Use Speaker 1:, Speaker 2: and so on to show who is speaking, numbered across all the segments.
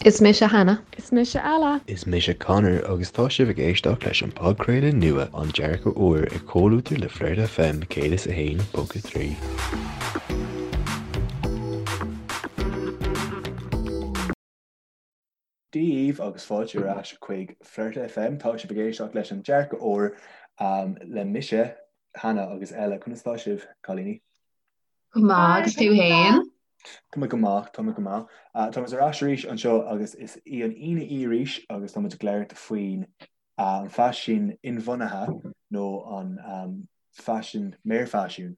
Speaker 1: Is mise Hannah.
Speaker 2: Is mise Ella.
Speaker 3: Is mise Conor agus tá sibh ag éisteacht leis an podchraoladh nua An Dearcadh Úr i gcomhluadar le Flirt FM 101.3.
Speaker 4: Dia dhaoibh agus fáilte ar ais chuig Flirt FM. Tá sibh ag éisteacht leis An Dearcadh Úr le mise, Hannah agus Ella. Conas tá sibh, cailíní?
Speaker 1: Go maith, agus tú fhéin?
Speaker 4: Tá mé go maith, tá mé go maith. Tá muid ar ais arís anseo agus is í an Aoine í arís agus tá muid ag labhairt faoin an faisean inbhuanaithe nó an faisean mearfhaisiún.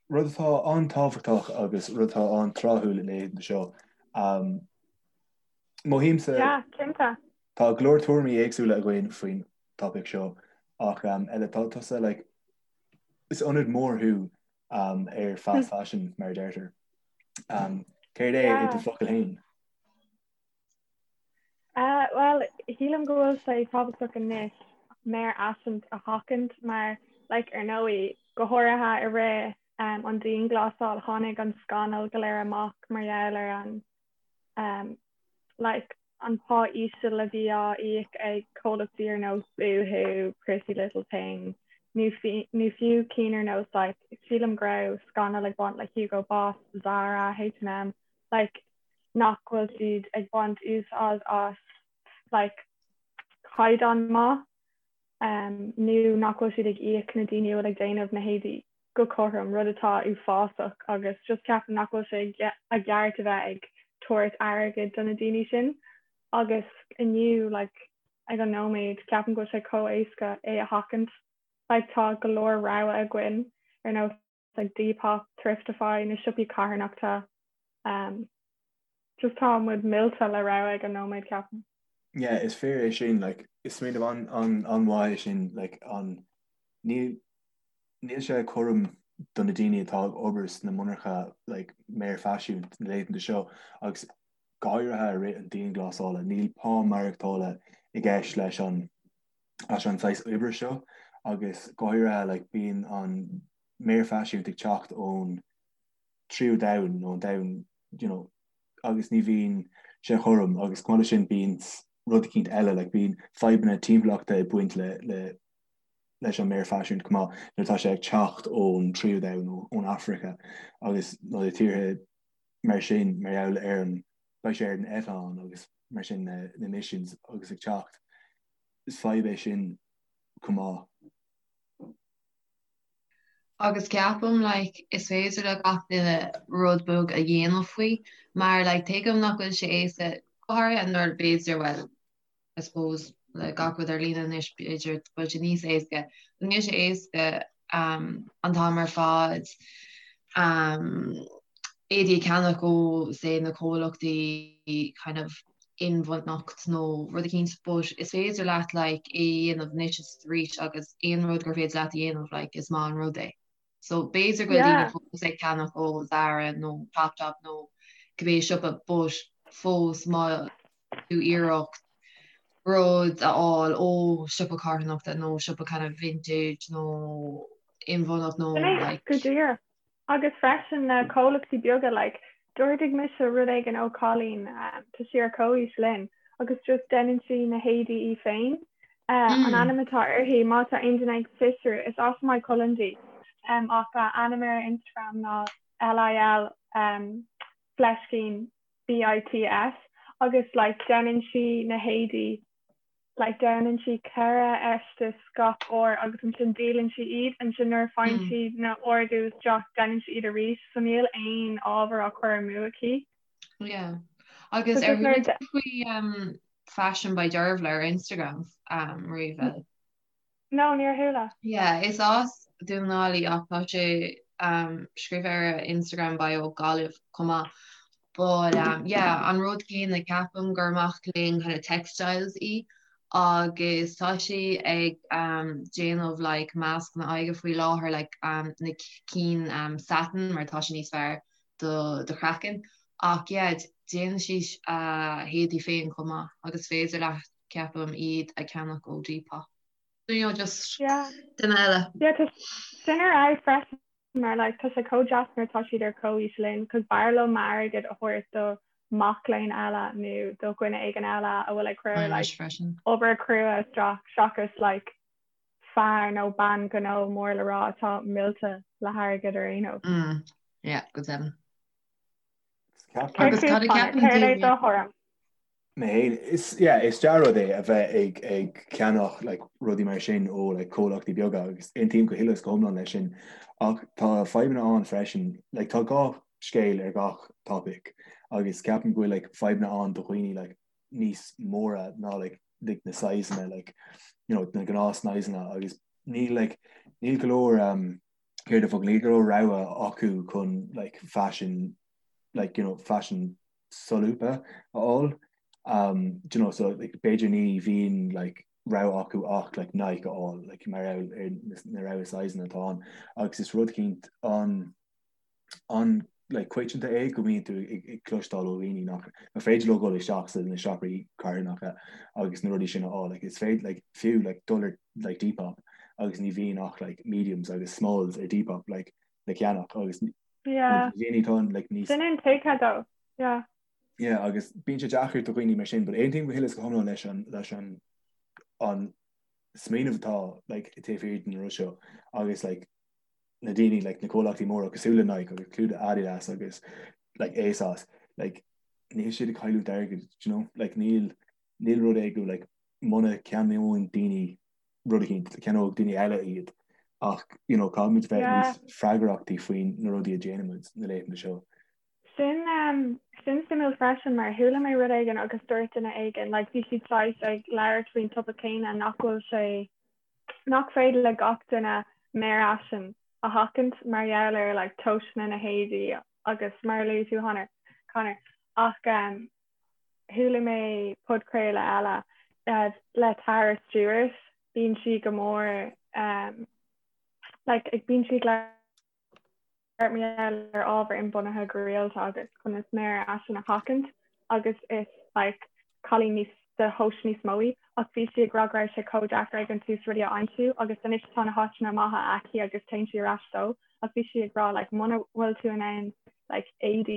Speaker 4: Rud atá an-tábhachtach agus rud atá an-tráthúil na laethanta seo. Mothaímse.
Speaker 2: Yeah, cinnte.
Speaker 4: Tá go leor tuairimí éagsúla againn faoin topaic seo ach Ella tá tusa like Is ionadaí mór thú ar fast fashion, mar a deirtear. Céard é i do focail féin?
Speaker 2: Bhuel, shílim go bhfuil sé tábhachtach anois mearfhaisean a sheachaint mar, like, ar ndóigh, go háirithe i rith an dianghlasáil, tháinig an scannal go léir amach mar gheall ar an, like, an pá íseal a bhí á íoc ag comhlachtaí ar nós Boohoo, Pretty Little Thing nó nó fiú cinn ar nós like sílim go raibh scannal ag baint le Hugo Boss, Zara, H&M like nach bhfuil siad ag baint úsáid as like caighdeán maith um, nó nach bhfuil siad ag íoc na daoine a bhfuil ag déanamh na héadaí go cothrom, rud atá uafásach agus just ceapaim nach bhfuil sé i gceart a bheith ag tabhairt airgid do na daoine sin agus inniu like ag an nóiméad ceapaim go bhfuil sé chomh éasca é a sheachaint. Like tá go leor rogha againn ar nós like Depop, Thriftify, na siopaí carthanachta um, just tá muid millte le rogha ag an nóiméad ceapaim.
Speaker 4: Yeah, is fíor é sin, like, is smaoineamh an, an, an-mhaith é sin, like, an, níl, Níl sé cothrom do na daoine atá ag obair sna monarcha like mearfhaisiún na laethanta seo agus go háirithe i rith an dianghlasála. Níl pá maireachtála i gceist leis an leis an saghas oibre seo agus go háirithe like bíonn an mearfhaisiún ag teacht ón tríú domhan nó an domhan you know agus ní bhíonn sé cothrom agus chomh maith leis sin bíonn rud eicínt eile like bíonn fadhbanna timpeallachta ag baint le le leis an mearfhaisiún chomh maith nuair atá sé ag teacht ón tríú domhan nó ón Afraice agus nó na tíortha mar sin mar gheall ar an beidh sé ar an eitleán agus mar sin na na emissions agus ag teacht is fadhb é sin chomh maith.
Speaker 1: Agus ceapaim like is féidir le gach duine rud beag a dhéanamh faoi mar like tuigim nach bhfuil sé éasca go háirithe nuair b'fhéidir well I suppose le gach rud ar líne anois b'fhéidir go bhfuil sé níos éasca. Níl sé éasca an t-am ar fad éadaí a cheannach ó say na comhlachtaí kind of inbhuanacht nó rud eicínt but is féidir leat like é a dhéanamh anois is arís agus aon rud gur féidir leat a dhéanamh like is maith an rud é. So b'fhéidir go bhfuil daoine fós ag ceannach ó Zara nó Topshop nó cibé siopa but fós má tú iarracht rud a fháil ó siopa carthanachta nó siopa kind of vintage nó inbhuanacht nó
Speaker 2: like. Go díreach. Agus freisin na comhlachtaí beaga like d'ordaigh mise rud éigin ó cailín tá sí ar comhaois linn agus just déanann sí na héadaí í féin. An ainm atá uirthi má tá aon duine ag fiosrú is as Maigh Cuilinn di ach a ainm ar Instagram ná LIL fleiscín BITS agus like déanann sí na héadaí like déanann sí 4 fheisteas gach uair agus ansin díolann sí iad ansin nuair a faigheann sí na ordú isteach déanann sí iad arís so níl aon ábhar á chur amú aici.
Speaker 1: Yeah. Agus ar chuala tú faoi um, Fashion by Dervla ar Instagram um, riamh?
Speaker 2: No, níor chuala.
Speaker 1: Yeah, is as Dún na nGall í ach tá sé um, scríofa ar a Instagram bio Gaillimh chomh maith. But um, yeah, an rud céanna ceapaim gur mac léinn kind of textiles í agus tá sí ag um, déanamh like mascanna aghaidhe faoi láthair like um, na cinn um, satin mar tá sé níos fearr do do chraiceann. Ach yeah, déanann sí a héadaí féin chomh maith agus féidir leat ceapaim iad a cheannach ó Depop. You know, just
Speaker 2: Yeah.
Speaker 1: duine eile.
Speaker 2: Yeah, tá sin ar fheabhas freisin mar like tá sé chomh deas nuair atá siad ar comhaois linn cos b'fhearr liom m'airgead a thabhairt do. mac léinn eile nó do dhuine éigin eile a bhfuil ag cur like obair crua isteach seachas like fear nó bean gnó mór le rá atá millte le hairgead ar aon nós.
Speaker 1: Mm, yeah, go deimhin.
Speaker 2: Agus cad a cheapann tú? Céard é do thuairim?
Speaker 4: Mé féin, is, yeah, is dea-rud é a bheith ag, ag ceannach like, rudaí mar sin ó like, comhlachtaí beaga agus aontaím go huile is go hiomlán leis sin ach tá fadhbanna ann freisin, like, tá gach scéal ar gach topic agus ceapaim go bhfuil like, fadhbanna ann do dhaoine like, níos móra ná like, like, na sizeanna like, you know, na gnáth-sizeanna agus níl like, níl go leor um, céard an focal, níl go leor rogha acu chun like, fashion like, you know, fashion solúbtha a fháil. Um, do you know, so like, b'fhéidir ní bhíonn like, rogha acu ach like, Nike a fháil like, mar gheall ar na rogha sizeanna atá ann. Agus is rud eicínt an an like, coitianta é go mbíonn tú ag, ag cloisteáil ó dhaoine nach nach féidir leo dul isteach sa na siopaí carthanacha agus na rudaí sin a fháil. Like, is féidir like, fiú like, dul ar like, Depop agus ní bhíonn ach like, mediums agus smalls ar Depop like, le ceannach agus
Speaker 2: Yeah.
Speaker 4: Daoine atá like níos
Speaker 2: Sin intuigthe though. Yeah.
Speaker 4: Yeah, agus bíonn sé deacair do dhaoine mar sin, but aontaím go huile is go hiomlán leis an leis an an smaoineamh atá like taobh thiar den rud seo agus like na daoine like na comhlachtaí móra cosúil le Nike agus cosúil le Adidas agus like ASOS like níl siad ag cailliúint airgid, do you know? Like níl níl rud é go like muna ceannaíonn daoine rud eicínt, ceannóidh daoine eile iad ach you know caithfimid bheith níos freagrachtaí faoin na rudaí a déanaimid na laethanta seo.
Speaker 2: Sin um, sin suimiúil freisin mar chuala mé rud éigin agus dúirt duine éigin like bhí siad saghas ag labhairt faoin topaic céanna nach bhfuil sé nach féidir le gach duine méar fhaisin a sheachaint mar gheall ar like tomhaiseanna na héadaí agus mar a luaigh tú Conor Conor ach um, Chuala mé podchraoladh eile le Tara Stewart, bíonn sí go mór like ag bíonn sí ag labhairt mar gheall ar ábhar inbhuanaithe go rialta agus conas méar fhaisin a sheachaint agus is like cailín níos de thomhais níos mó í ach bhí sí ag rá go raibh sé chomh deacair ag an tús rudaí a aimsiú agus anois tá na háiteanna maithe aici agus téann sí ar ais dó ach bhí sí ag rá like muna bhfuil tú in ann like éadaí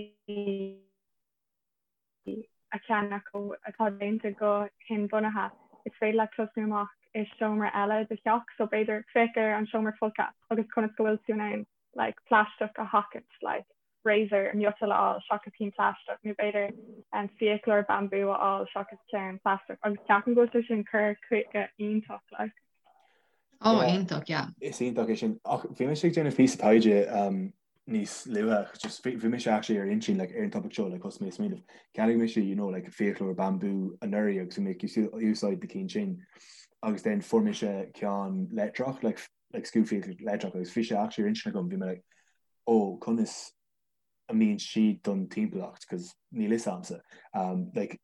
Speaker 2: a cheannach atá déanta go hinbhuanaithe, is féidir leat tosnú amach i seomra eile i do theach, so b'fhéidir féach ar an seomra folctha agus conas go bhfuil tú in ann like plaisteach a sheachaint, like razor miotail a fháil seachas cinn plaisteach nó b'fhéidir um, fiaclóir bambú a fháil seachas ceann plaisteach agus ceapaim go bhfuil sé sin cur chuige iontach like.
Speaker 1: Oh, iontach, yeah.
Speaker 4: Is iontach é sin. Ach bhí mise ag déanamh píosa taighde um, níos luaithe, just bhí mise actually ar intinn like ar an topic seo like thosaigh mé ag smaoineamh. Cheannaigh mise you know like fiaclóir bambú anuraidh agus bhí mé ag úsáid na cinn sin agus then fuair mise ceann leictreach like like scuabfhiaclóir leictreach agus bhí sé actually ar intinn agam bhí mé like oh conas a mbíonn siad don timpeallacht cos níl fhios a'msa um, like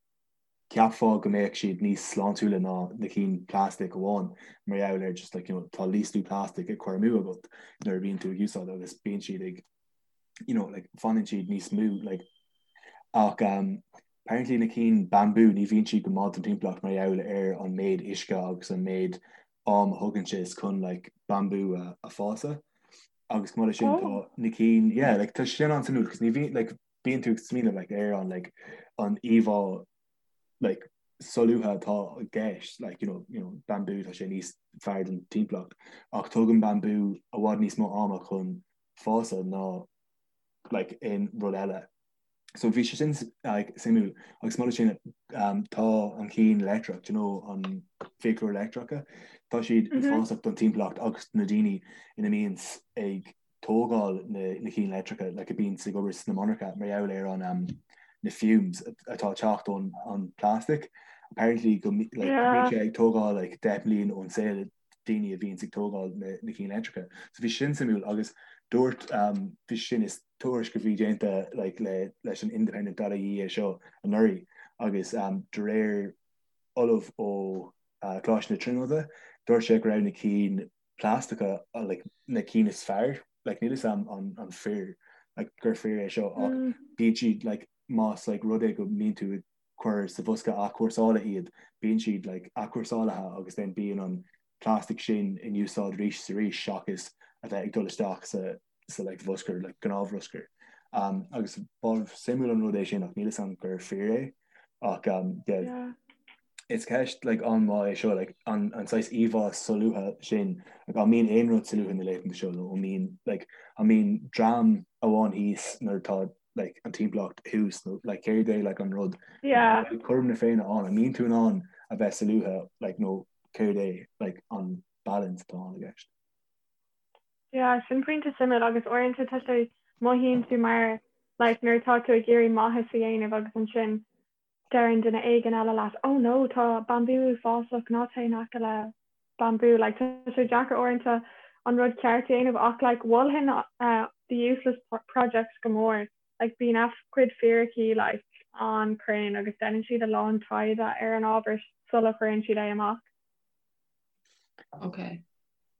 Speaker 4: Cheapfá go mbeadh siad níos sláintiúla ná na cinn plastic amháin mar gheall ar just like you know tá níos lú plastic ag cur amú agat nuair a bhíonn tú ag úsáid agus bíonn siad ag you know like fanann siad níos mó like ach um, apparently na cinn bambú ní bhíonn siad go maith don timpeallacht mar gheall ar an méid uisce agus an méid am a thugann sé chun like bambú a, a fásadh agus chomh maith leis sin tá oh. na cinn yeah like tá sin an-suimiúil cos ní bhíonn like bíonn tú ag smaoineamh like ar an like an íomhá like solúbtha atá i gceist like you know you know bambú tá sé níos fearr don timpeallacht ach tógann bambú i bhfad níos mó ama chun fásadh ná like aon rud eile. So bhí sé sin like suimiúil agus mar sin um, tá an cinn leictreach, do you know, an fiaclóir leictreacha, tá siad mm -hmm. uafásach don timpeallacht agus na daoine ina mbíonn ag tógáil na cinn leictreacha like a bíonns ag obair sna monarcha mar gheall ar an um, na fumes atá ag teacht ón an plastic. Apparently go like, bíonn sé ag tógáil like, 10 mbliain ón saol daoine a bhíonns ag tógáil na, na cinn leictreacha. So bhí sin suimiúil agus dúirt um, bhí sin is tuairisc a bhí déanta like, le, leis an Independent.ie é seo anuraidh agus um, de réir ollamh ó uh, Coláiste na Tríonóide, dúirt sé go raibh na cinn plaisteacha like na cinn is fearr like níl fhios a'm an an fíor like gur fíor é seo ach mm. bíonn siad like más like rud é go mbíonn tú ag cur sa bhosca athchúrsála iad bíonn siad like athchúrsálaithe agus then bíonn an plastic sin in úsáid arís is arís seachas a bheith ag dul isteach sa sa like bhruscar like gnáthbhruscar. Um, agus ba suimiúil an rud é sin ach níl fhios agam gur fíor é ach um, yeah,
Speaker 2: Yeah.
Speaker 4: is ceist like, an-mhaith é seo like, an, an saghas íomhá solúbtha sin like, an mbíonn aon rud solúbtha na laethanta seo nó an mbíonn like, an mbíonn dream amháin thíos nuair atá like, an timpeallacht thuas nó like, céard é like, an rud
Speaker 2: Yeah.
Speaker 4: cothrom na Féinne ann an mbíonn tú in ann a bheith solúbtha like, nó céard é like, an balance atá ann i gceist.
Speaker 2: Yeah, sin pointe suimiúil agus uaireanta tá sé mothaíonn tú mar like nuair atá tú ag iarraidh maitheas a dhéanamh agus ansin deireann duine éigin eile leat oh no tá bambú uafásach ná téigh in aice le bambú like tá sé deacair uaireanta an rud ceart a dhéanamh ach like mholfainn uh, the useless project go mór like bíonn a gcuid fíricí like an-chruinn agus déanann siad a lán taighde ar an ábhar sula chuireann siad é amach.
Speaker 1: Ok.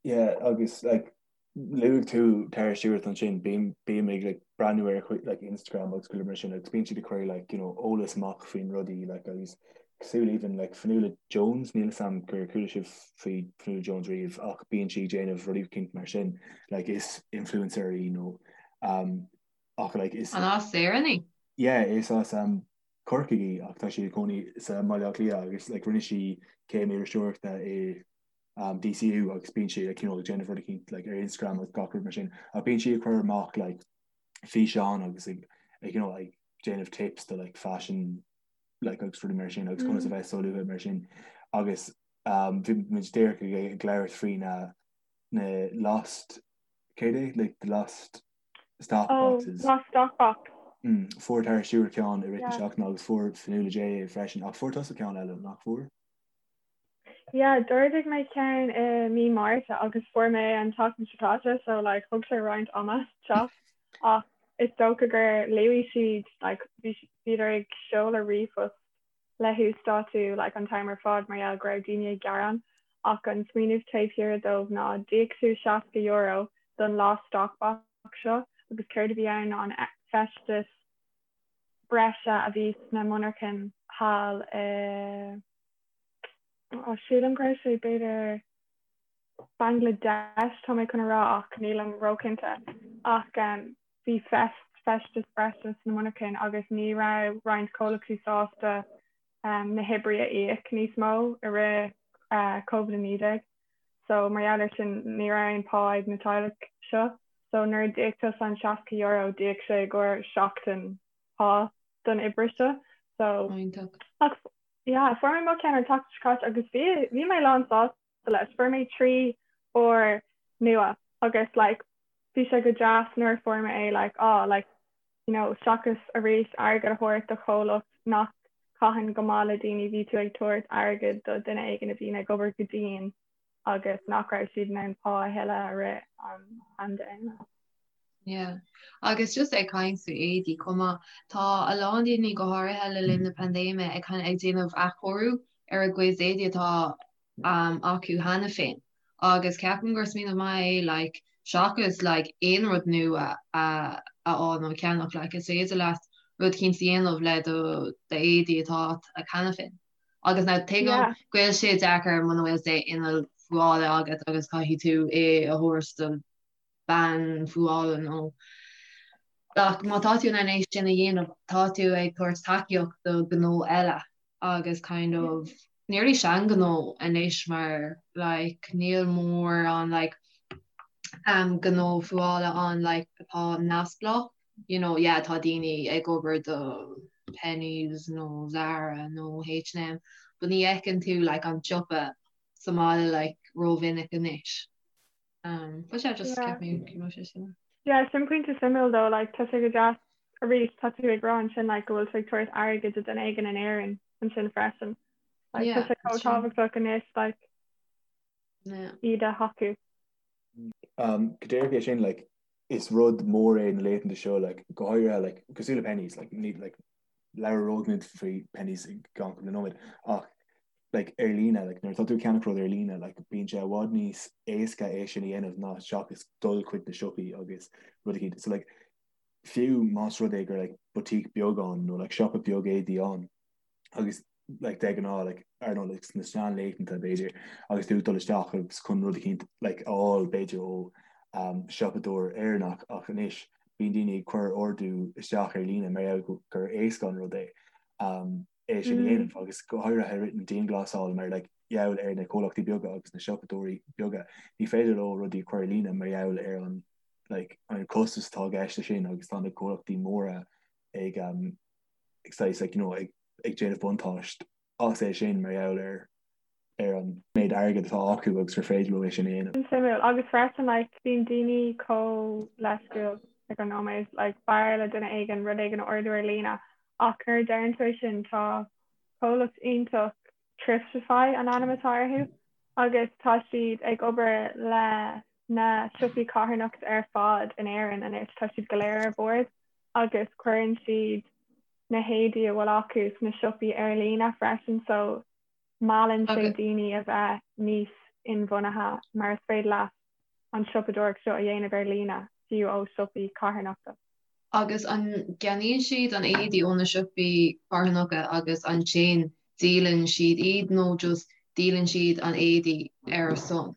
Speaker 4: Yeah, agus like luaigh tú Tara Stewart ansin, bím bím ag like breathnú ar a like Instagram agus chuile mar sin agus bíonn siad ag cur like you know eolas amach faoin rudaí like agus cosúil even like Fionnuala Jones, níl fhios a'm gur chuala sibh faoi Fionnuala Jones riamh ach bíonn sí ag déanamh rudaí eicínt mar sin like is influencer í nó um ach like is
Speaker 1: An as Éirinn í?
Speaker 4: Yeah, is as um Corcaigh í ach tá sí ag cónaí sa mBaile Átha Cliath agus like rinne sí céim iriseoireachta i um, DCU agus bíonn sí like, you know, ag déanamh rud eicínt like, ar Instagram agus gach rud mar sin ach bíonn sí ag cur amach like, físeán agus ag, ag, you know, ag déanamh tips do like, fashion like, agus rudaí mar sin agus conas a bheith solúbtha mar sin agus um, bhí muid díreach ag, ag labhairt faoi na, na lost céard é? Like, the lost stock
Speaker 2: Oh,
Speaker 4: boxes.
Speaker 2: lost stock box.
Speaker 4: Mm, fuair Tara Stewart ceann i rith na
Speaker 2: Yeah.
Speaker 4: seachtaine agus fuair Fionnuala J é freisin ach fuair tusa ceann eile nach bhfuair?
Speaker 2: Yeah, d'ordaigh mé ceann i mí Márta agus fuair mé an tseachtain seo caite so like thug sé roinnt ama teacht ach is dócha gur luaigh siad like bhí bhíodar ag seoladh ríomhphost le huasdátú like an t-am ar fad mar gheall go raibh daoine ag gearán ach an smaoineamh taobh thiar dóibh ná d'íoc tú €60 don lost stock box seo agus céard a bhí ann ná an feisteas breise a bhí sna monarchain thall i oh, sílim go raibh sé b'fhéidir Bangladesh tá mé chun a rá ach nílim róchinnte ach um, bhí feisteas breise sna monarchain agus ní raibh roinnt comhlachtaí sásta na hoibrithe a íoc níos mó i rith Covid-19. So mar gheall ar sin ní raibh aon pá ag na teaghlaigh seo. So nuair a d'íoc tusa an €60 d'íoc sé i gcomhair seachtain pá don oibrí seo. So
Speaker 1: Iontach.
Speaker 2: ach yeah, fuair mé mo cheann an tseachtain seo caite agus bhí bhí mé lán sásta leis. Fuair mé 3 pár nua agus like bhí sé go deas nuair a fuair mé é like ah like you know seachas arís airgead a thabhairt do chomhlacht nach caitheann go maith le daoine bhí tú ag tabhairt airgead do duine éigin a bhíonn ag obair go dian agus nach raibh siad in ann pá a thuilleadh i rith an phaindéime.
Speaker 1: Yeah. Agus just ag caint faoi éadaí chomh maith, tá a lán daoine go háirithe le linn na paindéime ag kind of ag déanamh athchóiriú ar a gcuid éadaí atá um, acu cheana féin. Agus ceapaim gur smaoineamh maith é like seachas like aon rud nua a a fháil nó a cheannach like is féidir leat rud eicínt a dhéanamh le do d'éadaí atá agat cheana féin. Agus now tuigim
Speaker 2: Yeah.
Speaker 1: go bhfuil sé deacair muna bhfuil sé inneall fuála agat agus caithfidh tú é a thabhairt do bean fuála nó ach má tá tú in ann é sin a dhéanamh tá tú ag tabhairt tacaíocht do ghnó eile agus kind of nearly seanghnó anois mar like níl mórán like um gnó fuála ann like atá neamhspleách you know yeah tá daoine ag obair do Penneys nó Zara nó H&M but ní fheiceann tú like an siopa sa mbaile like rómhinic anois. Um, but yeah, just
Speaker 2: Yeah.
Speaker 1: kept me go raibh sé sin.
Speaker 2: Yeah, sin pointe suimiúil though, like tá sé go deas arís tá tú ag rá ansin like go bhfuil tú ag tabhairt airgid do duine éigin in Éirinn ansin freisin. Like tá
Speaker 1: Yeah,
Speaker 2: sé chomh
Speaker 1: that's true.
Speaker 2: tábhachtach anois like
Speaker 1: Yeah.
Speaker 2: iad a thacú.
Speaker 4: Um, go díreach é sin like is rud mór é na laethanta seo like go háirithe like cosúil le Penneys like ní like labhróidh muid faoi Penneys i gceann cúpla nóiméad ach like ar líne like nuair atá tú ag ceannach rud ar líne like bíonn sé i bhfad níos éasca é sin a dhéanamh ná seachas dul chuig na siopaí agus rud eicínt so like fiú más rud é gur like boutique beag ann nó like siopa beag éadaí ann agus like de ghnáth like ar nó like sna seanlaethanta b'fhéidir agus tú ag dul isteach agus chun rud eicínt like a fháil b'fhéidir ó um, siopadóir Éireannach ach anois. Bíonn daoine ag cur ordú isteach ar líne mar gheall gur éasca an rud é é sin a dhéanamh agus go háirithe i rith na dianghlasála mar like gheall ar na comhlachtaí beaga agus na siopadóirí beaga ní féidir leo rudaí a chur ar líne mar gheall ar an like an costas atá i gceist leis sin agus tá na comhlachtaí móra ag um, ag saghas like, you know, ag, ag déanamh buntáiste as é sin mar gheall ar ar an méid airgid atá acu agus gur féidir leo é sin a dhéanamh.
Speaker 2: Suimiúil. Agus freisin like bíonn daoine chomh leisciúil ag an nóiméad like b'fhearr le duine éigin rud éigin a ordú ar líne ach nuair a deireann tú é sin tá comhlacht iontach Thriftify an ainm atá orthu agus tá siad ag obair le na siopaí carthanachta ar fad in Éirinn anois tá siad go léir ar bord agus cuireann siad na héadaí a bhfuil acu sna siopaí ar líne freisin so meallann sé daoine a bheith níos inbhuanaithe mar is féidir leat an siopadóireacht seo a dhéanamh ar líne fiú ó siopaí carthanachta.
Speaker 1: Agus an gceannaíonn siad an éadaí ó na siopaí carthanacha agus ansin díolann siad iad nó just díolann siad an éadaí ar a son?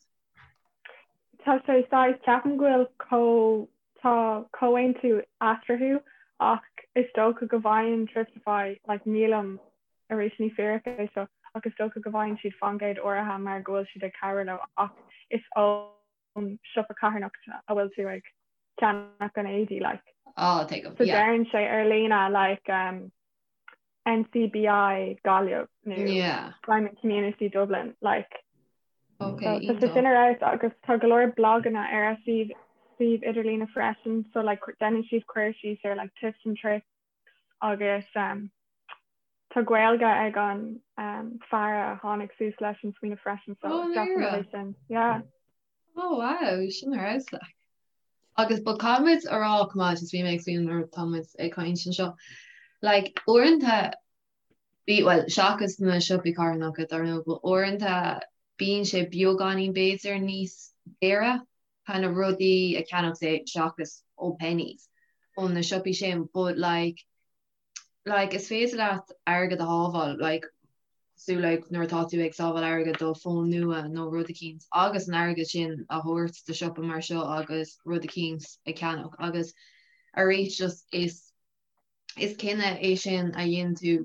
Speaker 2: Tá sé saghas, ceapaim go bhfuil comh, tá comhaontú eatarthu ach is dócha go bhfaigheann Thriftify, like nílim, arís ní fíric é seo, ach is dócha go bhfaigheann siad faoin gcéad áirithe mar go bhfuil siad ag cabhrú leo ach is ón siopa carthanachta a bhfuil tú ag ceannach an éadaí like.
Speaker 1: Oh, tuigim,
Speaker 2: So yeah. deireann sé ar líne like um, NCBI Gaillimh nó
Speaker 1: Yeah.
Speaker 2: Simon Community Dublin like
Speaker 1: Okay,
Speaker 2: so tá sé sin ar fheabhas agus tá go leor blaganna ar a suíomh suíomh idirlíne freisin so like déanann siad cur síos ar like tips and tricks agus um, tá Gaeilge ag an um, fear a tháinig suas leis an smaoineamh freisin so
Speaker 1: Oh,
Speaker 2: definitely
Speaker 1: Mira.
Speaker 2: sin yeah.
Speaker 1: Oh wow, sin ar fheabhas like. Agus but caithfimid a rá chomh maith, just bhí mé ag smaoineamh nuair atá muid ag caint anseo. Like uaireanta bí well seachas na siopaí carthanacha dar ndóigh, but uaireanta bíonn sé beagáinín b'fhéidir níos daoire kind of rudaí a cheannach say seachas ó Penneys ó na siopaí sin but like like is féidir leat airgead a shábháil like cosúil like nuair atá tú ag sábháil airgead do fón nua nó rud eicínt agus an airgead sin a thabhairt do siopa mar seo agus rud eicínt a cheannach agus arís just is is cinneadh é sin a dhéanann tú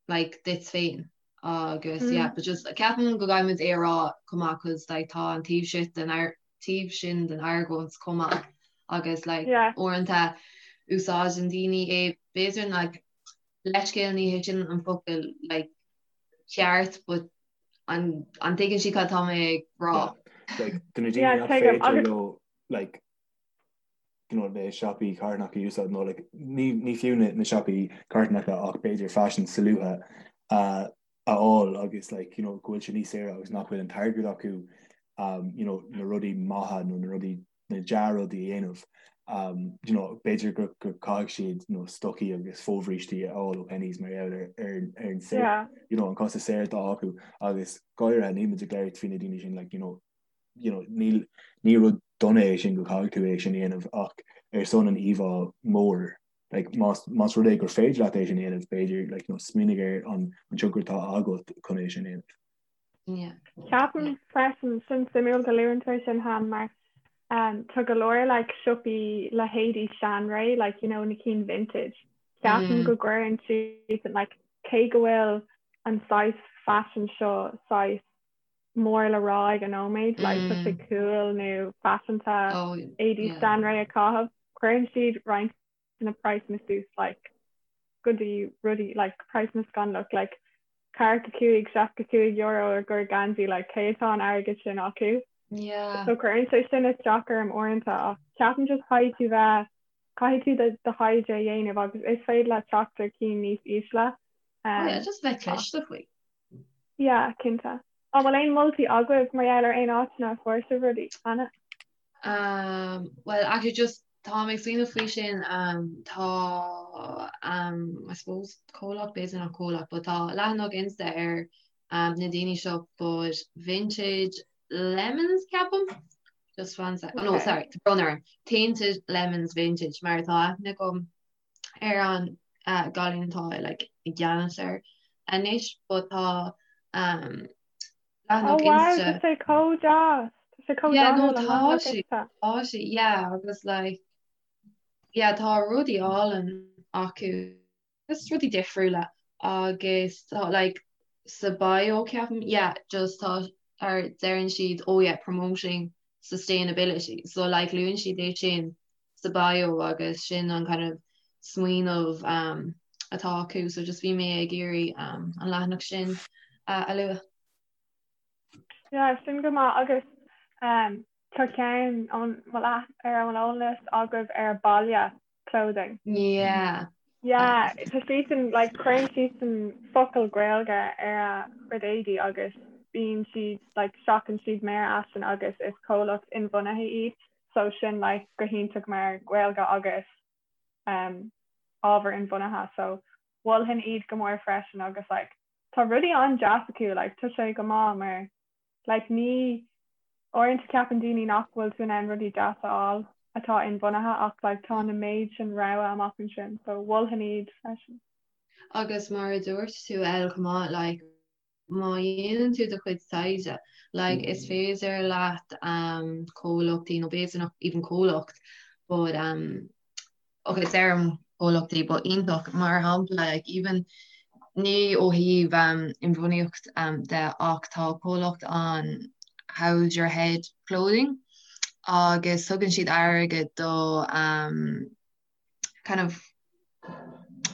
Speaker 1: like duit féin agus mm. yeah but just ceapaim go gcaithfimid é a rá chomh maith cause like tá an taobh sin den ar taobh sin den argóint chomh maith agus like
Speaker 2: yeah.
Speaker 1: uaireanta úsáideann daoine é b'fhéidir like leithscéal ní hé sin an focal like ceart but an an dtuigeann sibh cad tá mé ag rá.
Speaker 4: Like, do na daoine
Speaker 2: Yeah,
Speaker 4: nach
Speaker 2: tuigim.
Speaker 4: féidir
Speaker 2: Agus
Speaker 4: leo like you know, na siopaí carthanacha a úsáid nó like, ní, ní fiú na, na siopaí carthanacha ach b'fhéidir faisean solúbtha uh, a fháil agus like, you know, go bhfuil sé níos saoire agus nach bhfuil an t-airgead acu um, you know, na rudaí maithe nó na rudaí na dea-rudaí a dhéanamh. Um, you know, b'fhéidir go, go caithfidh siad you know, stocaí agus fobhrístí a fháil ó Penneys mar gheall ar, ar, ar an saor,
Speaker 2: yeah.
Speaker 4: you know, an costas saor atá acu agus go háirithe níl muid ag labhairt faoi na daoine sin like, you know, you know, níl, ní rud dona é sin go caithfidh tú é sin a dhéanamh ach ar son an íomhá mór like, más, más rud é gur féidir leat é sin a dhéanamh b'fhéidir like, you know, smaoinigh ar an, an tionchar atá agat chun é sin a dhéanamh.
Speaker 1: Yeah.
Speaker 2: Ceapaim freisin sin suimiúil go luann tú é sin Han mar um, tá go leor like, siopaí le héadaí seanré like, you know, na cinn vintage. Ceapaim mm. go gcuireann siad like, cé go bhfuil an saghas fashion seo saghas mór le rá ag an nóiméad, like tá sé cool nó faiseanta éadaí seanré a chaitheamh, cuireann siad roinnt de na praghsanna suas like go dtí rudaí like praghsanna scannalach like 45, €65 ar gcomhair geansaí like cé atá an airgead sin acu?
Speaker 1: Yeah.
Speaker 2: So cuireann sé sin isteach orm uaireanta ach ceapaim just caithfidh tú bheith caithfidh tú do do thaighde a dhéanamh agus is féidir leat teacht ar cinn níos ísle.
Speaker 1: Oh yeah, just bheith cliste faoi.
Speaker 2: Yeah, cinnte. An bhfuil aon moltaí agaibh mar gheall ar aon áiteanna a fuair sibh rudaí cheana?
Speaker 1: Um, well, actually just tá mé ag smaoineamh faoi sin, um, tá um, I suppose comhlacht, b'fhéidir nach comhlacht, but tá leathanach Insta ar um, na daoine seo, but Vintage Lemons ceapaim? Just one sec. Oh, no,
Speaker 2: Okay.
Speaker 1: sorry, tá brón orm. Tainted Lemons Vintage mar tá aithne agam ar an gcailín atá like i gceannas air anois but tá um,
Speaker 2: Oh
Speaker 1: leathanach
Speaker 2: wow,
Speaker 1: Insta
Speaker 2: tá sé chomh deas. Tá sé chomh
Speaker 1: Yeah, no
Speaker 2: dathúil an
Speaker 1: tá
Speaker 2: leathanach
Speaker 1: sé
Speaker 2: Insta.
Speaker 1: tá sé yeah agus like. Yeah tá rudaí álainn acu just rudaí difriúla agus tá like sa bio ceapaim yeah just tá ar deireann siad oh yeah promoting sustainability so like luann siad é sin sa bio agus sin an kind of smaoineamh um, atá acu so just bhí mé ag iarraidh um, an leathanach sin uh, a lua.
Speaker 2: Yeah, sin go maith agus um, tá ceann an bhfuil ar an eolas agaibh ar Baile clothing.
Speaker 1: Yeah.
Speaker 2: Yeah, tá siadsan like cuireann siadsan focal Gaeilge ar a gcuid éadaí agus bíonn siad like seachann siad mearfhaisean agus is comhlacht inbhuanaithe iad so sin like go hiontach mar Gaeilge agus um, ábhar inbhuanaithe so mholfainn iad go mór freisin agus like tá rudaí an-deas acu like tá sé go maith mar Like ní, uaireanta ceapann daoine nach bhfuil tú in ann rudaí deasa a fháil atá inbhuanaithe ach like tá na méid sin rogha amach ansin so mholfainn iad freisin.
Speaker 1: Agus mar a dúirt tú El chomh maith like má dhéanann tú do chuid taighde like is féidir leat um comhlachtaí nó b'fhéidir nach even comhlacht but um ok deirim comhlachtaí but iontach mar shampla like even ní ó thaobh um inbhuanaíocht um de ach tá comhlacht ann How's Your Head Clothing agus tugann siad airgead do um kind of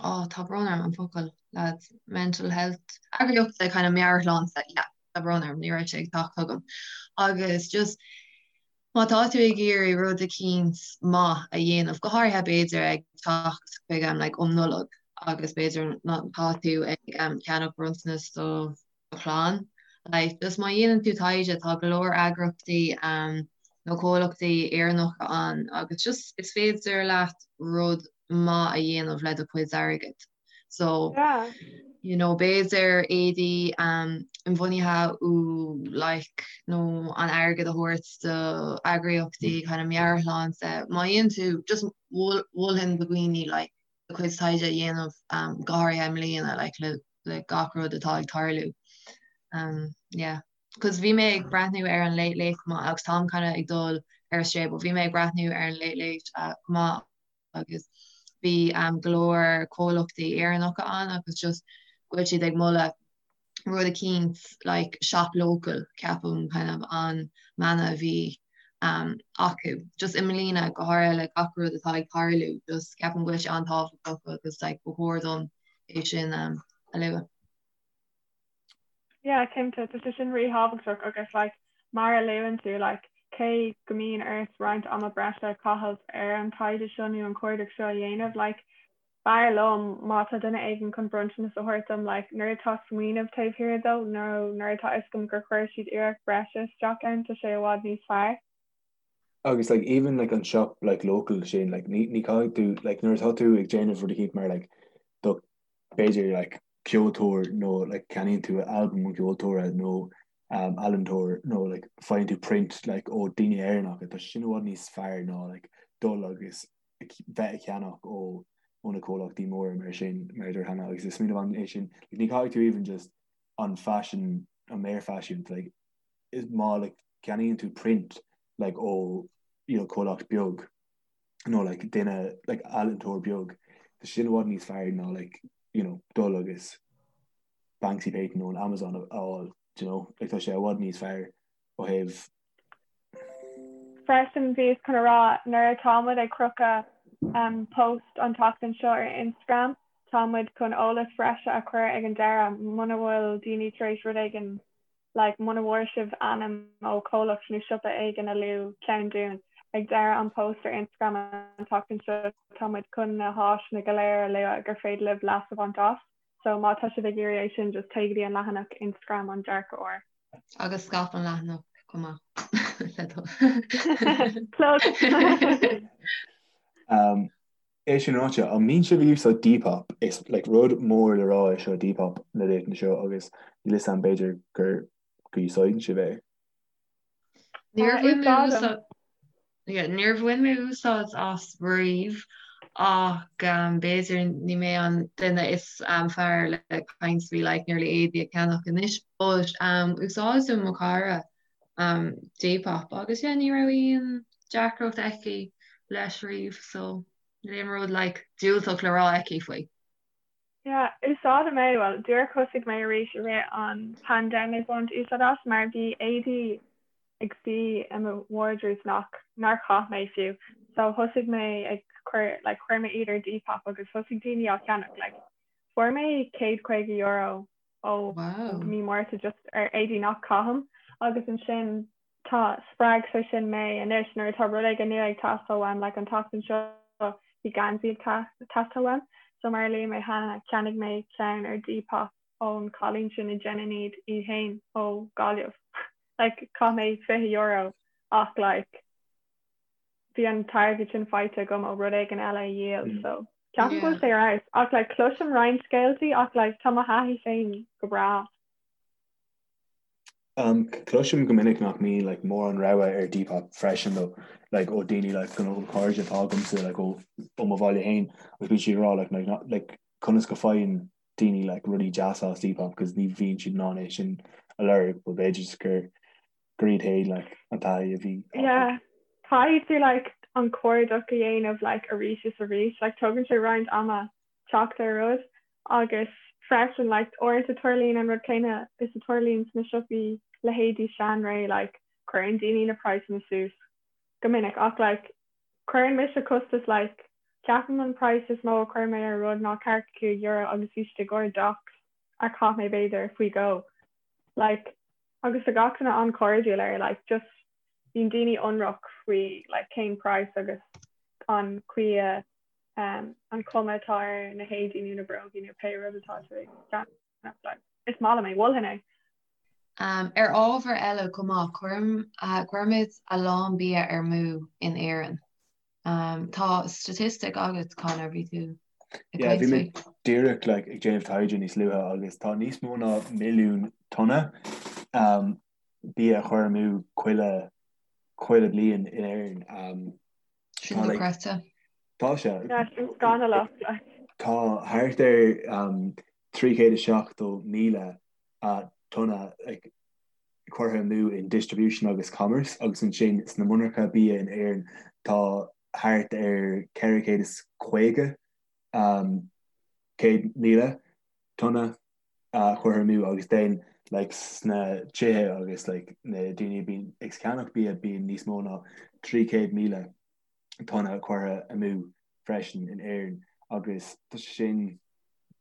Speaker 1: oh tá brón orm an focal lads mental health eagraíocht kind of meabhairshláinte yeah tá brón orm ní raibh sé ag teacht chugam agus just Má tá tú ag iarraidh rud eicínt maith a dhéanamh, go háirithe b'fhéidir ag teacht chuig am like um Nollaig agus b'fhéidir má tá tú ag ceannach bronntanas do do chlann, like just má dhéanann tú taighde tá go leor eagraíochtaí nó comhlachtaí Éireannacha ann agus just is féidir leat rud maith a dhéanamh le do chuid airgid. So
Speaker 2: Yeah.
Speaker 1: you know b'fhéidir éadaí um, inbhuanaithe ó like nó an airgead a thabhairt do eagraíochtaí kind of meabhairshláinte. Má dhéanann tú just mholfainn do dhaoine like do chuid taighde a dhéanamh um, go háirithe i mbliana like le, le gach rud atá ag tarlú. Um, yeah. Cos bhí mé ag breathnú ar an Late Late chomh maith agus táim kind of ag dul ar strae, but bhí mé ag breathnú ar an Late Late uh, chomh maith agus bhí go leor comhlachtaí Éireannacha ann agus just go bhfuil siad ag moladh rud eicínt like shop local ceapaim kind of an mana a bhí um, acu. Just i mbliana go háirithe le gach rud atá ag tarlú just ceapaim go bhfuil sé an-tábhachtach agus like ba chóir dom é sin um, a lua.
Speaker 2: Yeah, cinnte, tá sé sin ríthábhachtach agus like mar a luann tú like cé go mbíonn ort roinnt ama breise a chaitheamh ar an taighde seo nó an cuardach seo a dhéanamh like b'fhearr liom má tá duine éigin chun bronntanas a thabhairt dom like nuair atá smaoineamh taobh thiar dó nó nuair atá fhios agam gur chuir siad iarracht breise isteach ann tá sé i bhfad níos fearr.
Speaker 4: Agus like even like an shop like local sin like ní ní caithfidh tú like nuair atá tú ag déanamh rud eicínt mar like do b'fhéidir like ceoltóir nó like ceannaíonn tú albam an cheoltóra nó um, ealaíontóir nó like faigheann tú print like ó daoine Éireannacha tá sin i bhfad níos fearr ná like dul agus bheith ag ceannach ó ó na comhlachtaí móra mar sin mar a dúirt Hannah agus is smaoineamh an é sin like, ní caithfidh tú even just an fashion an méarfhaisean like is má like ceannaíonn tú print like ó you know comhlacht beag nó like duine like ealaíontóir beag tá sin i bhfad níos fearr ná like you know dul agus Banksy painting ón Amazon a fháil do you know like tá sé i bhfad níos fearr ó thaobh
Speaker 2: Freisin bhíos chun a rá nuair atá muid ag crochadh um, post an tseachtain seo ar Instagram tá muid chun eolas breise a chur ag an deireadh muna bhfuil daoine tar éis rud éigin like muna bhfuair sibh ainm ó chomhlacht nó siopa éigin a luadh ceann dúinn. Ag deireadh an post ar Instagram an tseachtain seo tá muid chun na háiseanna go léir a lua gur féidir libh leas a bhaint as. So má tá sibh ag iarraidh é sin just téigh go dtí an leathanach Instagram an Dearcadh Úr.
Speaker 1: Agus scaip an leathanach chomh maith le do
Speaker 2: Plug!
Speaker 4: Um, É sin ráite, an mbíonn sibh ag úsáid Depop? Is like rud mór le rá é seo Depop na laethanta seo agus níl 'fhios a'm b'fhéidir gur go úsáideann sibh é.
Speaker 1: Níor bhain mé úsáid yeah, níor bhain mé úsáid as riamh ach um, b'fhéidir ní mé an duine is um, fearr le caint faoi like nearly éadaí a cheannach anois but um, úsáideann mo chara um, Depop agus yeah, ní raibh aon deacracht aici leis riamh so. Níl aon rud like diúltach le rá aici faoi.
Speaker 2: Yeah, úsáidim é, bhuel, díreach thosaigh mé arís i rith an pandemic baint úsáid as mar bhí éadaí ag suí i mo wardrobe nach nár chaith mé fiú. So thosaigh mé ag cur like chuir mé iad ar Depop agus thosaigh daoine á cheannach like fuair mé €150 ó Wow. mí Márta just ar éadaí nach caithim agus ansin tá spreag sé sin mé anois nuair atá rud éigin nua ag teastáil uaim like an tseachtain seo bhí geansaí ag teastáil uaim so mar a luaigh mé cheana cheannaigh mé ceann ar Depop ón cailín sin a dhéanann iad í féin ó Gaillimh like chaith mé €20 ach like bhí an t-airgead sin faighte agam ó rud éigin eile a dhíol so ceapaim go bhfuil sé ar fheabhas ach like cloisim roinnt scéaltaí ach like tá mo thaithí féin go breá.
Speaker 4: Um, cloisim go minic nach mbíonn like, mórán rogha ar Depop freisin though, like, ó daoine like, go ó cairde atá agamsa like, ó, ó mo bhaile féin agus bíonn siad ag rá like, like, not, like, conas go faigheann daoine like, rudaí deasa as Depop cos ní bhíonn siad in ann é sin a lorg but b'fhéidir gur gur iad féin like, an taithí a bhí
Speaker 2: acu. Yeah, caithfidh tú like, an cuardach a dhéanamh like, arís is arís, like, tógann sé roinnt ama teacht ar rud agus freisin like uaireanta tarlaíonn an rud céanna is a tarlaíonn sna siopaí leithéidí Seanré like cuireann daoine na praghsanna suas go minic ach like cuireann mise costas like ceapaim an praghas is mó a chuir mé ar rud ná €45 agus bhí siad i gcomhair Docs a chaith mé b'fhéidir faoi dhó like agus tá gach duine an-chairdiúil air like just bíonn daoine ionraic faoi like cén praghas agus an chaoi a an chuma atá ar na héadaí nó na brógaí nó pé rud atá tú ag ceannach. Is maith liom é, mholfainn é.
Speaker 1: Ar ábhar eile chomh maith, cuirimid a lán bia ar mú in Éirinn. Tá staitistic agat, Conor, bhí tú
Speaker 4: ag caint faoi. Bhí mé díreach like, ag déanamh taighde níos luaithe agus tá níos mó ná milliún tonna bia a chur amú chuile chuile bliain in Éirinn.
Speaker 1: Sin dochreidte.
Speaker 4: Tá sé. Sin scannalach. Tá thart ar 370,000 tonna curtha amú in distribution agus commerce agus ansin sna monarcha bia in Éirinn tá thart ar 450,000 tonna curtha amú agus then like sna tithe agus like na daoine a bíonn ag ceannach bia bíonn níos mó ná 300,000 tonna curtha amú freisin in Éirinn agus tá sé sin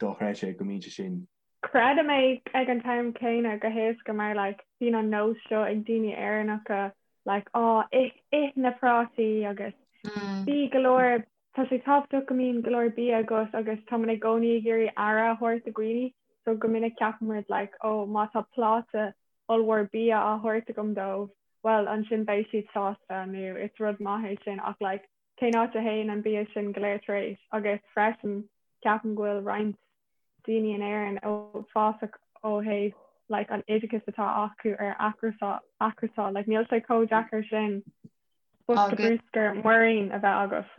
Speaker 4: dochreidte go mbíonn sé sin.
Speaker 2: Creidim é ag an t-am céanna go héasca mar like bíonn an nós seo ag daoine Éireannacha like á ith ith na prátaí agus bí go leor Tá sé tábhachtach go mbíonn go leor bia agat agus táimid i gcónaí ag iarraidh aire a thabhairt do dhaoine so go minic ceapaimid like oh má tá pláta ollmhór bia á thabhairt agam dóibh bhuel ansin beidh siad sásta nó is rud maith é sin ach like cén áit a théann an bia sin go léir tar éis agus freisin ceapaim go bhfuil roinnt daoine in Éirinn uafásach ó thaobh like an oideachas atá acu ar athchúrsáil like níl sé chomh deacair sin bosca bruscair muirín a bheith agat.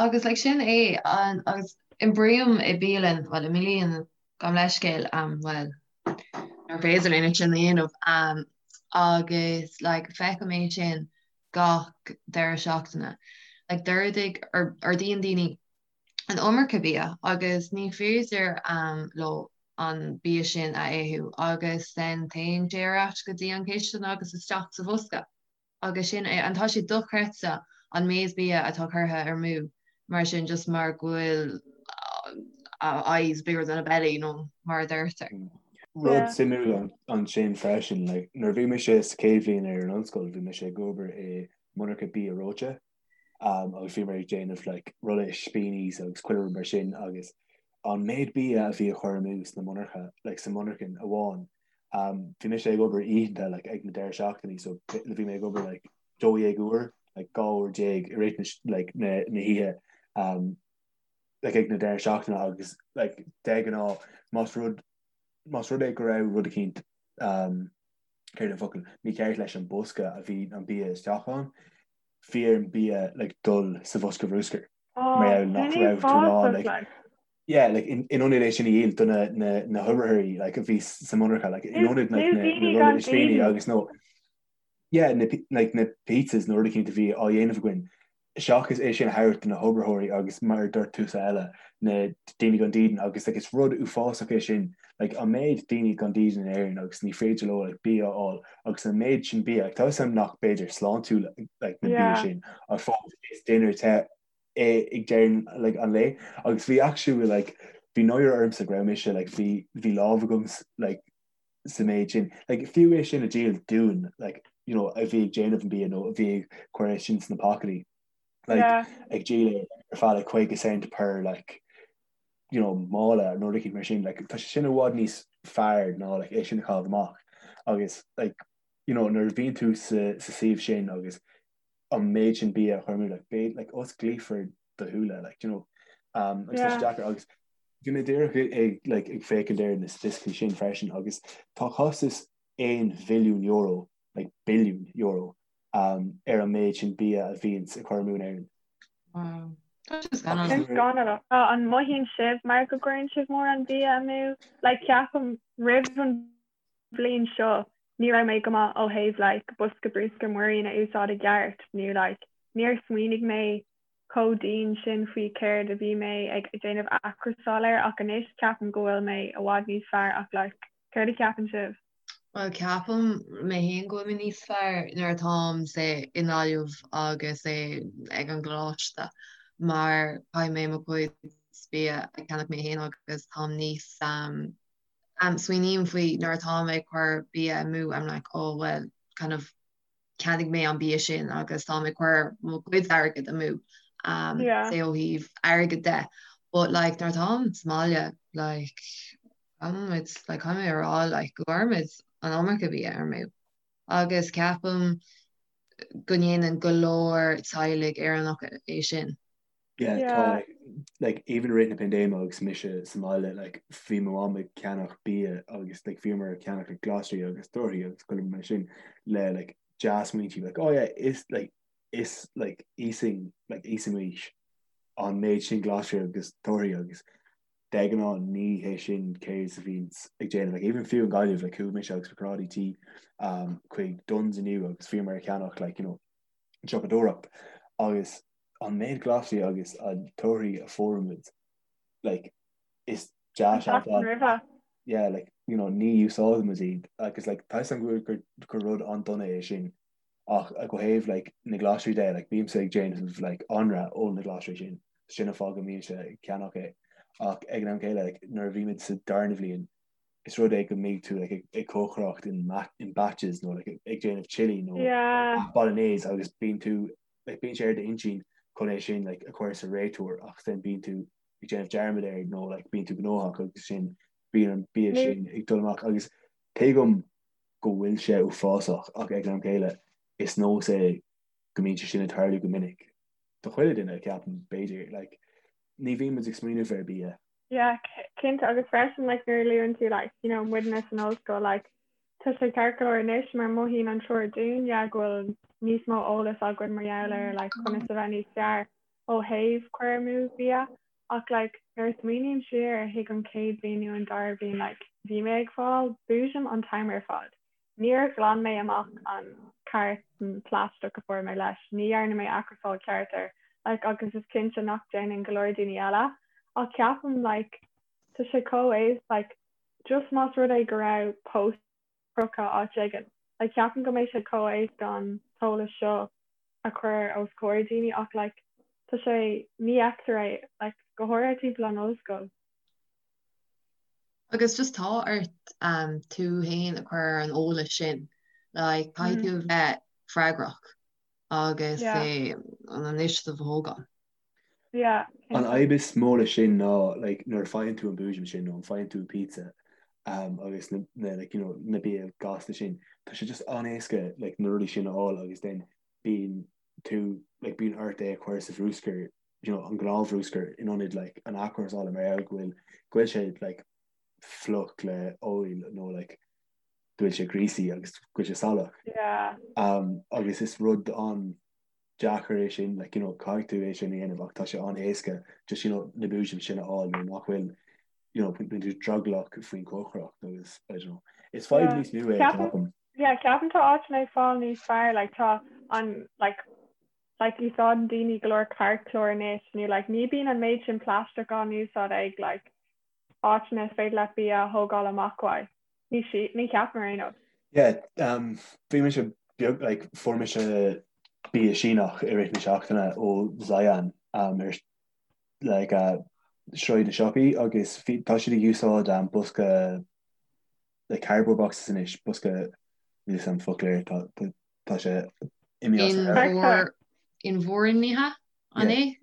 Speaker 1: Agus like sin é an agus oibrím i bialann, bhuel i mbialann gabh mo leithscéal um bhuel nuair féidir linn é sin a dhéanamh um agus like feicim é sin gach deireadh seachtaine. Like d'ordaigh ordaíonn daoine an iomarca bia agus ní féidir um leo an bia sin a ithe agus then téann sé ar ais go dtí an chistin agus isteach sa bhosca. Agus sin é, and tá sé dochreidte an méid bia atá curtha ar mú mar sin just mar go bhfuil a eye is bigger than a belly nó mar a deirtear.
Speaker 4: Rud suimiúil ansin freisin, like, nuair a bhí mise sa chéad bhliain ar an ollscoil, bhí mise ag obair i monarcha bia reoite um, agus bhíomar ag déanamh like, rolla ispíní agus chuile rud mar sin agus an méid bia a bhí á chur amú sna monarcha, like, sa monarchan amháin, Um, bhí mise ag obair oícheanta like, ag na deireadh seachtainí, so bhí mé ag obair like, 12 uair, like, 12 uair i rith na, like, na, na hoíche um, like, ag na deireadh seachtaine agus like, de ghnáth más rud más rud é go raibh rud eicínt um, céard an focal mícheart leis an bosca a bhí an bia isteach ann, bhí ar an bia like, dul sa bhosca bhruscair.
Speaker 2: Oh,
Speaker 4: Mar gheall nach
Speaker 2: sin
Speaker 4: raibh tú in ann,
Speaker 2: uafásach,
Speaker 4: like,
Speaker 2: like.
Speaker 4: yeah, like, in, in ionad é sin a dhíol do na, na, na hoibritheoirí, like, a bhí sa monarcha, like, in ionad, like,
Speaker 2: Nó
Speaker 4: na, na
Speaker 2: daoine
Speaker 4: rolla
Speaker 2: gan
Speaker 4: ispíní
Speaker 2: daoine.
Speaker 4: agus nó, yeah, na, like, na pizzas nó rud eicínt a bhí á dhéanamh againn. Seachas é sin a thabhairt do na hoibritheoirí agus mar a dúirt tusa Ella, na daoine gan dídean agus like is rud uafásach é sin like an méid daoine gan dídean in Éirinn agus ní féidir leo like bia a fháil agus an méid sin bia like tá 'fhios a'm nach b'fhéidir sláintiúil like na bia sin ach fós is dinnéar te é ag deireadh like an lae agus bhí actually like bhí náire ormsa go raibh mise like bhí bhí lámh agam like sa méid sin. Like, fiú é sin a dhíol dúinn, like, you know, a bhí ag déanamh an bia nó a bhí ag cur é sin sna pacáistí. Like, yeah. ag díol é ar feadh like 50 cent per like, you know, mála nó rud éicint mar sin, like, tá sé sin i bhfad níos fearr ná like, é sin a chaitheamh amach. Agus like, you know, nuair a bhíonn tú sa, sa suíomh sin agus an méid sin bia a chur amú, like, beidh, like, osclaífear do shúile, like, you know, um, agus tá sé deacair agus bhí mé díreach ag, like, ag féachaint ar na staitisticí sin freisin agus tá costas €1 bhilliún, like, billiún euro, um, ar an méid sin bia a bhíonns ag cur amú in Éirinn.
Speaker 1: Wow. Tá sé
Speaker 2: scannalach. Sin scannalach. An mothaíonn sibh mar go gcuireann sibh mórán bia amú? Like, ceapaim roimh an bhliain seo ní raibh mé go maith ó thaobh like bosca bruscair muirín a úsáid i gceart nó like níor smaoinigh mé chomh dian sin faoi céard a bhí mé ag déanamh athchúrsáil air ach anois ceapaim go bhfuil mé i bhfad níos fearr ach like céard a cheapann sibh?
Speaker 1: Bhuel ceapaim mé féin go bhfuil mé níos fearr nuair atáim say i nGaillimh agus say ag an gcoláiste mar caithfidh mé mo chuid bia a cheannach mé féin agus táim níos um, Smaoiním faoi nuair atá mé ag cur bia amú, I'm like oh well kind of cheannaigh mé an bia sin agus tá mé ag cur mo chuid airgead amú um, yeah. say ó thaobh airgead de. But like nuair atáim sa mbaile like caithfimid like caithfidh mé a rá like go gcuirimid an iomarca bia amú. Agus ceapaim go ndéanann go leor teaghlaigh Éireannacha é sin.
Speaker 4: Yeah, tá like even i rith na paindéime agus mise sa mbaile like bhí mo mham ag ceannach bia agus like bhíomar ag ceannach like glasraí agus torthaí agus chuile rud mar sin le like dea-smaointí like oh yeah is like is like íosfainn like íosfaimis an méid sin glasraí agus torthaí agus de ghnáth ní hé sin céard a bhíonns ag déanamh like even fiú in Gaillimh like chuaigh mise agus mo chomrádaí tí um chuig Dunnes inniu agus bhíomar ag ceannach like you know siopadóireacht agus an méid glasraí agus an torthaí a fuair muid like is deas
Speaker 2: An tseachtain roimhe.
Speaker 4: yeah like you know ní úsáideann muid iad agus like tá 'fhios a'm go gur gur rud an-dona é sin ach ó thaobh like na glasraí de like bímse ag déanamh like anraith ó na glasraí sin sin an fáth go mbímse ag ceannach é ach ag an am céile like nuair a bhí muid sa darna bhliain is rud é go mbeidh tú like ag cócaireacht in in batches nó like ag déanamh chili nó
Speaker 2: yeah
Speaker 4: bolognese agus bíonn tú like bíonn sé ar d'intinn chun é sin like a chur sa réiteoir ach then bíonn tú ag déanamh dearmad air nó like bíonn tú gnóthach agus sin bíonn an bia sin ag dul amach agus tuigim go bhfuil sé uafásach ach ag an am céile is nós é go mbíonn sé sin ag tarlú go minic do chuile duine ceapaim b'fhéidir like ní bhíonn muid ag smaoineamh ar bia.
Speaker 2: Yeah, cinnte agus freisin like nuair a luann tú like you know muidne san ollscoil like tá sé ceart go leor anois mar mothaíonn an triúr dúinn yeah go bhfuil níos mó eolas againn mar gheall ar like conas a bheith níos fearr ó thaobh cur amú bia ach like nuair a smaoiním siar chuig an chéad bhliain nó an dara bliain like bhí mé ag fáil boojum an t-am ar fad. Níor ghlan mé amach an cartún plaisteach a fuair mé leis, ní dhearna mé athchúrsáil ceart air, like agus is cinnte nach déanann go leor daoine eile ach ceapaim like tá sé chomh éasca like just más rud é go raibh post crochta áit éigin like ceapaim go mbeidh sé chomh éasca an t-eolas seo a chur os comhair daoine ach like tá sé ní fheictear é like go háirithe timpeall an ollscoil.
Speaker 1: Agus just tá ort um, tú féin a chur ar an eolas sin like caithfidh tú bheith freagrach agus
Speaker 2: Yeah.
Speaker 1: é an initiative a thógáil.
Speaker 2: Yeah,
Speaker 4: An
Speaker 2: cinnte.
Speaker 4: fhadhb is mó leis sin ná like nuair a faigheann tú an boojum sin nó an faigheann tú pizza um, agus na, na, like, you know, na bia gasta sin, tá sé just an-éasca like, na rudaí sin a fháil agus then bíonn tú like, bíonn ort é a chur sa bhruscar, you know, an gnáthbhruscar in ionad like, an athchúrsála mar gheall go bhfuil go bhfuil sé like, fliuch le oil nó like, go bhfuil sé greasy agus go bhfuil sé salach.
Speaker 2: Yeah.
Speaker 4: Um, agus is rud an deacair é sin, like, you know, caithfidh tú é sin a dhéanamh ach tá sé an-éasca just, you know, na boojum sin a fháil nuair nach bhfuil, you know, bíonn tú drogallach faoin chócaireacht agus, I don't know. Is fadhb
Speaker 2: Yeah.
Speaker 4: níos mó é,
Speaker 2: Ceapaim,
Speaker 4: ceapaim.
Speaker 2: yeah, ceapaim tá áiteanna ag fáil níos fearr, like, tá an, like, Like úsáideann daoine go leor cairtchlár anois nó like ní bíonn an méid sin plaisteach á n-úsáid ag like áiteanna is féidir leat bia a thógáil amach uaidh. Ní sí, ní cheapaim ar aon nós.
Speaker 4: Yeah, um, bhí mise beag, like, fuair mise bia Síneach i rith na seachtaine ó Zion um, ar like, uh, Sráid na Siopaí agus bhí, tá siad ag úsáid um, bosca like, cardboard boxes anois, bosca níl a fhios agam focal air, tá, tá, Tá sé
Speaker 1: imithe. Inmhúirnithe, an é?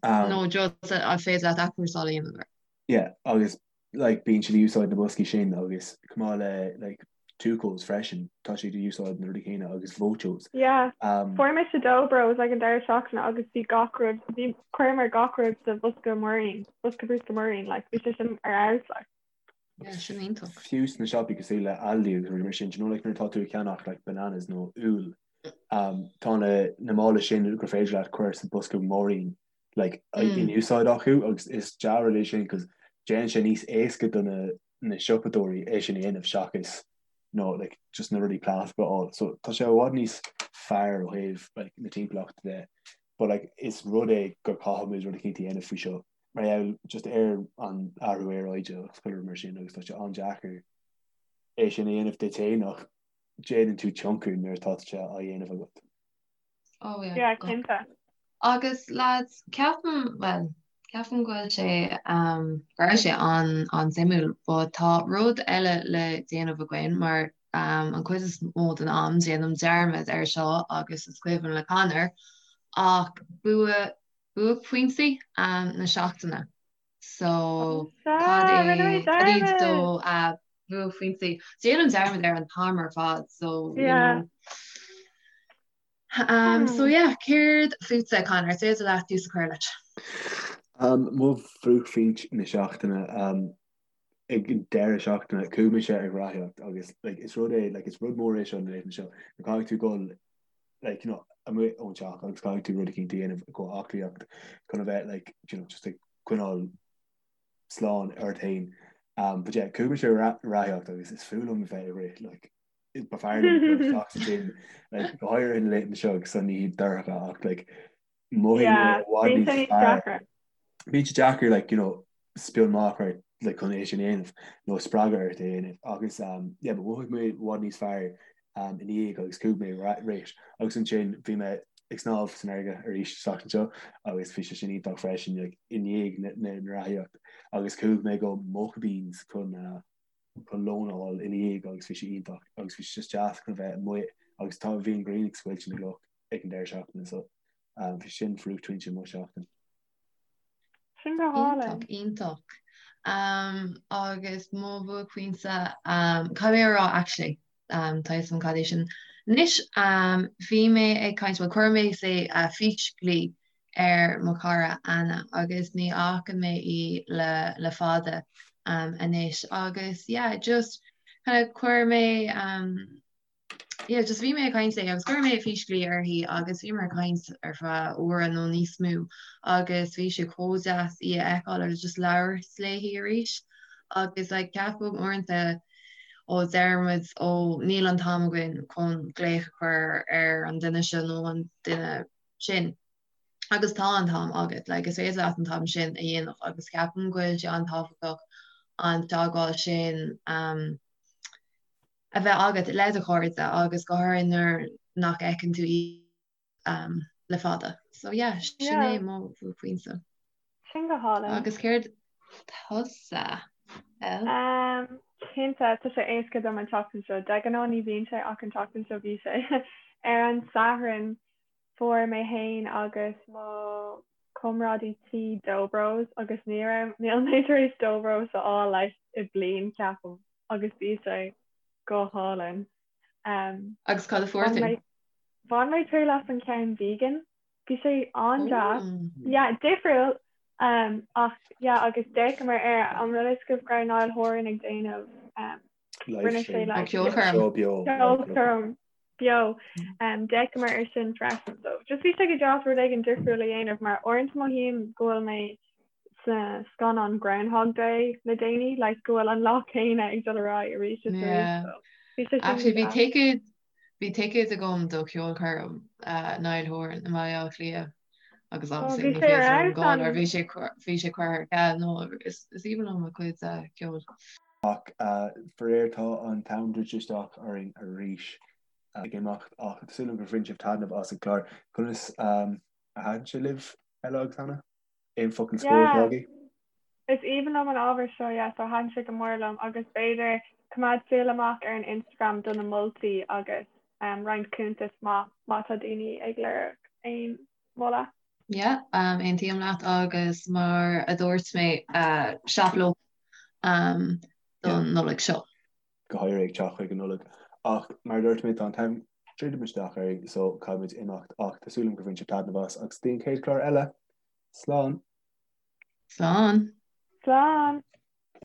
Speaker 1: Nó just an féidir leat athchúrsáil a dhéanamh air?
Speaker 4: Yeah, agus like bíonn siad ag úsáid na boscaí sin agus chomh maith le like Tucos freisin, tá siad ag úsáid na rudaí céanna agus Vochos.
Speaker 2: Yeah, fuair mise Dobros ag an deireadh seachtaine agus bhí gach rud, bhí, chuireamar gach rud sa bhosca muirín, bosca bruscair muirín, like bhí sé sin ar fheabhas like.
Speaker 1: Yeah, sin iontach.
Speaker 4: Fiú sna siopaí cosúil le Aldi agus rudaí mar sin, do you know like nuair atá tú ag ceannach like bananas nó úll, um, tá na, na mála sin gur féidir leat cur sa bosca múirín like in úsáid acu agus is dea-rud é sin cos déanann sé níos éasca do na, na siopadóirí é sin a dhéanamh seachas nó like just na rudaí plaisteacha a fháil. So tá sé i bhfad níos fearr ó thaobh like na timpeallachta de. But like is rud é gur caithfidh muid rud eicínt a dhéanamh faoi seo. mar gheall just ar an athrú aeráide agus chuile rud mar sin agus tá sé an-deacair é sin a dhéanamh duit féin ach déanann tú tionchar nuair atá sé á dhéanamh agat.
Speaker 1: Oh
Speaker 2: yeah. Yeah, cinnte.
Speaker 1: Agus lads, ceapaim, well, ceapaim go bhfuil sé, um, go raibh sé an, an-suimiúil, but tá rud eile le déanamh againn mar um, an cuid is mó den am déanaim dearmad ar seo agus is cuimhin le Conor ach bua buaicphointí na seachtaine. So cad é cad iad do bhuaicphointí? Déanaim dearmad air an t-am ar fad so you know. Um, so yeah, céard fútsa Conor, is féidir leat tús a chur leis.
Speaker 4: Um, mo bhuaicphointe na seachtaine um, ag an deireadh seachtaine chuaigh mise ag reathaíocht agus like, is rud é like, is rud mór é seo na laethanta seo go caithfidh tú dul like, you know, amuigh ón teach agus caithfidh tú rud eicínt a dhéanamh go aclaíocht chun a bheith like, you know, just ag coinneáil slán ort féin. Um, but yeah, chuaigh mise ag reathaíocht agus is fuath liom a bheith ag rith like, ba fearr liom dul isteach sa gym like, go háirithe na laethanta seo agus an oíche dorcha ach like, mothaigh mé i bhfad níos fearr. Bíonn sé deacair like, you know, spion maith a chur like, chun é sin a dhéanamh nó spreagadh ort é a dhéanamh agus um, yeah, but mhothaigh mé i bhfad níos fearr um, i ndiaidh agus chuaigh mé rith agus ansin bhí mé ag snámh san fharraige arís an tseachtain seo agus bhí sé sin iontach freisin like, i ndiaidh na, na, na reathaíocht agus chuaigh mé go Mocha Beans chun uh, chun lón a fháil ina dhiaidh agus bhí sé iontach agus bhí sé just deas chun a bheith amuigh agus tá bhí an ghrian ag scoilteadh na gcloch ag an deireadh seachtaine so um, bhí sin buaicphointe mo
Speaker 2: sheachtain. Sin go hálainn.
Speaker 1: Iontach, iontach. Um, agus mo bhuaicphointe, um, caithfidh mé a rá actually, um, tá a fhios agam cad é sin. Anois, um, bhí mé ag caint, well, chuir mé say, uh, físghlaoch ar mo chara Anna agus ní fhaca mé í le, le fada um, anois agus yeah, just kind of chuir mé um, yeah, just bhí mé ag caint léi agus chuir mé físghlaoch uirthi agus bhíomar ag caint ar feadh uaire nó níos mó agus bhí sé chomh deas í a fheiceáil agus just labhairt léi arís agus like ceapaim uaireanta ó deir muid ó níl an t-am againn chun glaoch a chur ar an duine seo nó an duine sin agus tá an t-am agat like is féidir leat an t-am sin a dhéanamh agus ceapaim go bhfuil sé an-tábhachtach an teagmháil sin um, a bheith agat le do chairde agus go háirithe nuair nach bhfeiceann tú iad le fada. So yeah, sin é mo bhuaicphointe.
Speaker 2: Sin go hálainn.
Speaker 1: Agus céard tusa,
Speaker 2: El? Um, cinnte, tá sé éasca dom an tseachtain seo. De ghnáth ní bhíonn sé ach an tseachtain seo bhí sé. Ar an Satharn fuair mé fhéin agus mo chomrádaí tí Dobros agus ní raibh, níl mé tar éis Dobros a fháil like i bliain ceapaim. agus bhí sé go hálainn.
Speaker 1: Um, agus cad a fuair tú?
Speaker 2: Bhain mé triail as an ceann vegan. Bhí sé an-deas. Yeah, difriúil um, ach yeah, agus d'fhéachamar ar an rud is go raibh Niall Horan ag déanamh um,
Speaker 4: rinne sé
Speaker 1: like, ceolchoirm
Speaker 2: ceolchoirm beo um, d'fhéachamar ar sin freisin. So just bhí sé go deas rud éigin difriúil a dhéanamh mar uaireanta mothaím go bhfuil mé sa scannán Groundhog Day le déanaí, like go bhfuil an lá céanna ag dul ar aghaidh arís is arís.
Speaker 1: So, bhí sé sin Actually, bhí ticket. Bhí ticéad agam do cheolchoirm Niall Horan i mBaile Átha Cliath agus obviously ní féidir liom dul mar bhí sé bhí sé curtha ar ceal no is aoibhinn liom a cuid ceoil.
Speaker 4: Ach faraor tá an t-am druidte isteach orainn arís ag imeacht ach tá súil agam gur bhain sibh taitneamh as an chlár. Conas a thaitin sé libh Ella agus Hannah? Aon focal scoir atá agaibh?
Speaker 2: Is aoibhinn liom an ábhar seo, yeah, so thaitin sé go mór liom agus b'fhéidir coimeád súil amach ar an Instagram do na moltaí agus um, roinnt cuntas má má tá daoine ag lorg aon mholadh.
Speaker 1: Yeah, um, aontaím leat agus mar a dúirt mé uh, shop local um, don Nollaig seo.
Speaker 4: Go háirithe ag teacht chuig an Nollaig. Ach mar a dúirt mé tá an t-am druidte isteach orainn so caithfimid imeacht ach tá súil agam gur bhain sibh taitneamh as agus go dtí an chéad chlár eile. Slán!
Speaker 1: Slán!
Speaker 2: Slán!